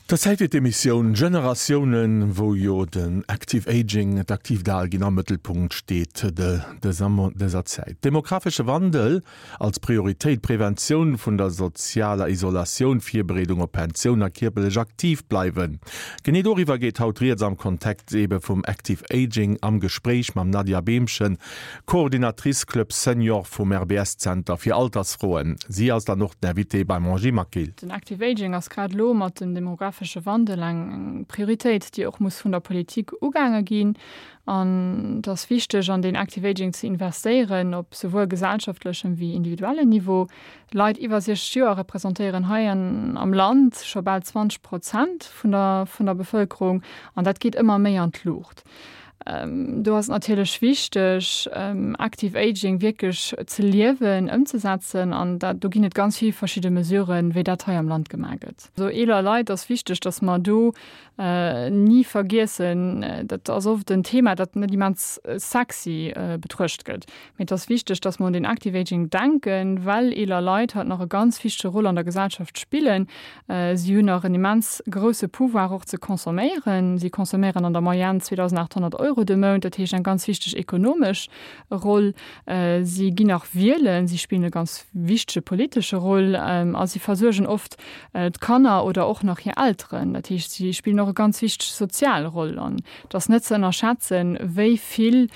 Der Zäit fir d'Emissioun Generatiounen, wou jo den Active Aging, d'aktiivt Alginn am Mëttelpunkt steet dëser Zäit. Demografesche Wandel als Prioritéit, Preventioun vun der sozialer Isolatioun, Virbereedung op Pensioun a kierperlech aktiv bleiwen. Genee doriwwer geet haut rieds am Kontext ebe vum Active Aging am Gespréich mam Nadia Behmchen, Coordinatrice Club Senior vum RBS-Zenter fir Altersfroen. Si ass dann och den Invité beim Angie Maquil. Den Active Aging ass grad elo mat dem demographesche Wandel eng Prioritéit, déi och muss vun der Politik ugaange ginn. An et ass wichteg, an deen Active Aging ze investéieren, op souwuel gesellschaftlechem wéi individuellen Niveau. Leit iwwer 60 Joer representéieren hei am Land scho bal 20 Prozent vun der Bevëlkerung an dat geet ëmmer méi an d'Luucht. Do ass et natierlech wichteg, Active Aging wierklech ze liewen, ëmzesetzen. An dat, do ginn et ganz vill verschidde Mesuren, wéi dat hei am Land gemaach gëtt. Also eeler Leit ass wichteg, datt mer do ni vergiessen, dat ass oft en Thema, dat net immens sexy betruecht gëtt, mee et ass wichteg, datt mer un den Active Aging denken, well eeler Leit haut nach e ganz wichtege Rôle an der Gesellschaft spillen. Si hunn nach en immens grousse Pouvoir och ze consomméieren. Si consomméieren an der Moyenne 2.800 Euro de Mount, dat heescht eng ganz wichteg ekonomesch Roll. Si ginn nach wielen, si spillen e ganz wichtege politesche Roll a si versuergen oft d'Kanner oder och nach hir Elteren. Dat heescht, si spillen och e ganz wichteg sozial Roll an et ass net ze ënnerschätzen, wéi vill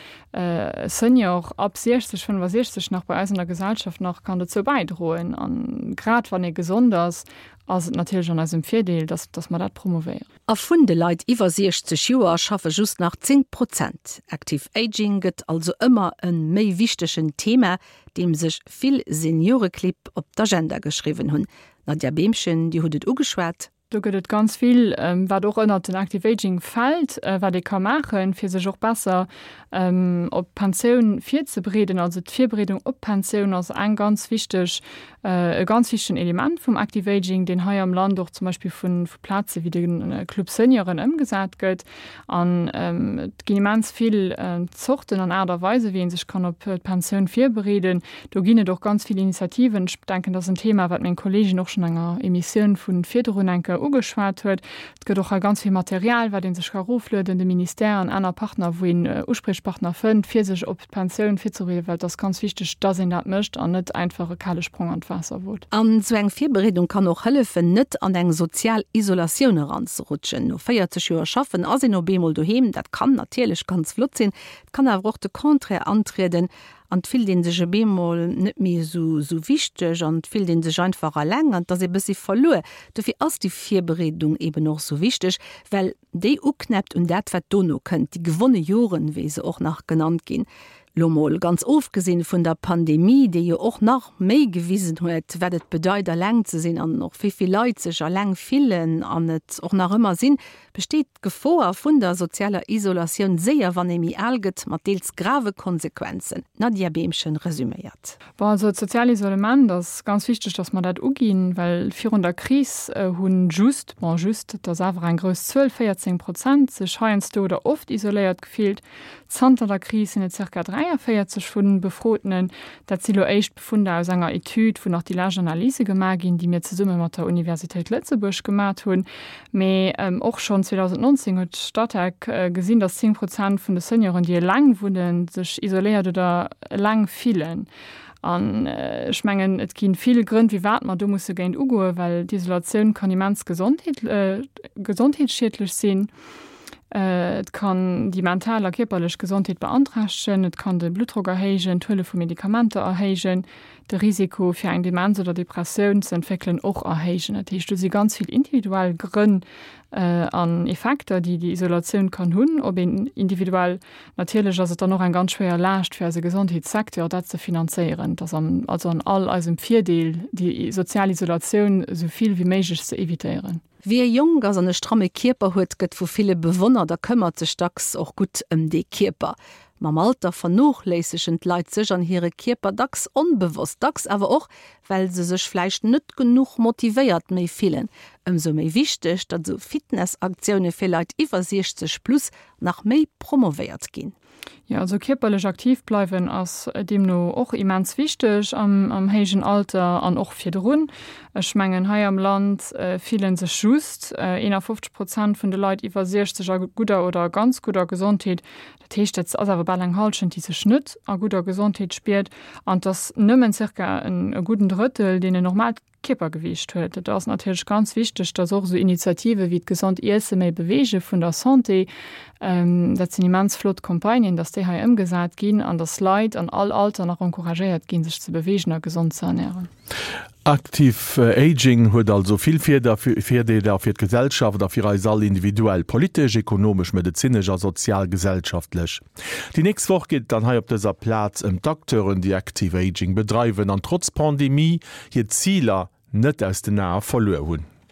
Senior ab 60, 65 nach bei eis an der Gesellschaft nach kann dozou bäidroen. An grad wann ee gesond ass, ass et natierlech an eisem Virdeel, dass, dass mer dat promouvéieren. A vun de Leit iwwer 60 Joer schaffe just nach 10 Prozent. Active Aging gëtt also ëmmer e méi wichtegen Thema, deem sech vill Senioreclibb op d'Agenda geschriwwen hunn. Nadja Behmchen, Dir hutt et ugeschwat. Do gëtt et ganz vill, wat och ënnert den Active Aging fält, wat ee ka maachen, fir sech och besser op d'Pensioun virzebereeden. Also d'Virbereedung op d'Pensioun ass eng ganz wichteg, e ganz wichtegen Element vum Active Aging, deen hei am Land och zum Beispill vu Plaze wéi de Club Senioren ëmgesat gëtt. An et ginn immens vill Zorten an Aart a Weisen, wéi ee sech kann op d'Pensioun virbereeden. Do ginn et och ganz vill Initiativen. Ech denken, dat ass en Thema, wat meng Kolleegin och schonn enger Emissioun vu virdrun eng Kéier ugeschwat huet. Et gëtt och hei ganz vill Material, wat ee sech ka eroflueden, de Ministère an aner Partner, wou een Uspriechpartner fënnt, fir sech op d'Pensioun virzebereeden, well et ass ganz wichteg, dass een dat mécht an net einfach e kale Sprong an d'Waasser wot. An esou eng Virbereedung kann och hëllefen, net an eng sozial Isolatioun eranzerutschen. No 40 Joer schaffen ass een op eemol doheem. Dat kann natierlech ganz flott sinn, et kann awer och de Contraire antrieden an et fillt ee sech op eemol net méi esou esou wichteg an et fillt ee sech einfach eleng an et ass ee bëssi verluer. Dofir ass déi Virbereedung eben och esou wichteg, well déi uknäppt un dat, wat dono kënnt, déi gewonne Joren, wéi se och nach genannt ginn. Lo mol ganz ofgesinn vun der Pandemie, déi jo och nach méi gewisen huet, wat et bedeit, eleng ze sinn an och wéi vill Leit sech eleng fillen an et och nach ëmmer sinn, besteet d'Gefoer vun der sozialer Isolatioun séier, wann ee méi al gëtt, mat deels grave Konsequenzen. D'Nadja Behmchen resüméiert. Bon, also d'sozial Isolement ass ganz wichteg, datt mer dat uginn, well virun der Kris hu just, bon just, et ass awer eng grouss Zuel, 14 Prozent sech heiansdo oder oft isoléiert gefillt. Zanter der Kris sinn et zirka 43 vun Befrotenen. Dat si lo éischt Befunder aus enger Etüd, wou nach déi lescht Analyse gemaach ginn, déi mir zesumme mat der Universitéit Lëtzebuerg gemat hunn. Mee och schonn 2019 huet d'Statec gesinn, datt 10 Prozent vun de Senioren, déi eleng wunnen, sech isoléiert oder eleng fillen. An ech mengen, et gi vill Grënn, firwat mer do musse géint ugoen, well d'Isolatioun kann immens gesondheetsschiedlech sinn. Et kann déi mental a kierperlech Gesondheet beanträchtegen, et kann de Bluttdrock erhéijen, d'Huele vu Medikamenter erhéijen, de Risiko fir eng Demenz oder Depressioun ze entwéckelen och erhéijen. Dat heescht, do si ganz vill individuell Grënn an Effekter, déi déi Isolatioun kann hunn op een individuell. Natierlech ass et dann och eng ganz schwéier Laascht fir eise Gesondheetssecteur, dat ze finanzéieren. Et ass also an all eisem Virdeel, déi sozial Isolatioun esou vill wéi méiglech ze evitéieren. Wie jonk ass an e stramme Kierper huet, gëtt vu ville bewonnert a këmmert sech dacks och gutt ëm dee Kierper. Mam Alter vernochléissegen d'Leit sech an hire Kierper dacks onbewosst, dacks awer och, well se sech vläicht net genuch motivéiert méi fillen. Ëmsou méi wichteg, datt esou Fitnessaktioune fir Leit iwwer 60 plus nach méi promovéiert ginn. Jo, also kierperlech aktiv bleiwen ass deemno och immens wichteg am héijen Alter an och virdrun. Ech mengen, hei am Land fillen sech just 51 Prozent vun de Leit iwwer 60 a gudder oder ganz gudder Gesondheet. Dat heescht, dat ass awer bal eng Hallschent, déi sech net a gudder Gesondheet spiert. An et ass nëmmen zirka e gudden Drëttel, deen en normaalt Kierpergewiicht huet. Et ass natierlech ganz wichteg, dass och esou Initiative wéi d'Gesond Iesse méi beweege vun der Santé, dat sinn immens flott Campagnen, dass déi hei ëmgesat ginn an dass Leit an all Alter nach encouragéiert ginn, sech ze beweegen a gesond ze ernären. Active Aging huet also vill Virdeeler fir d'Gesellschaft a fir eis all individuell, politesch, ekonomesch, medezinesch a sozial-gesellschaftlech. Déi nächst Woch geet et dann hei op dëser Plaz ëm d'Acteuren, déi Active Aging bedreiwen an trotz Pandemie hir Ziler net aus den Ae verluer hunn.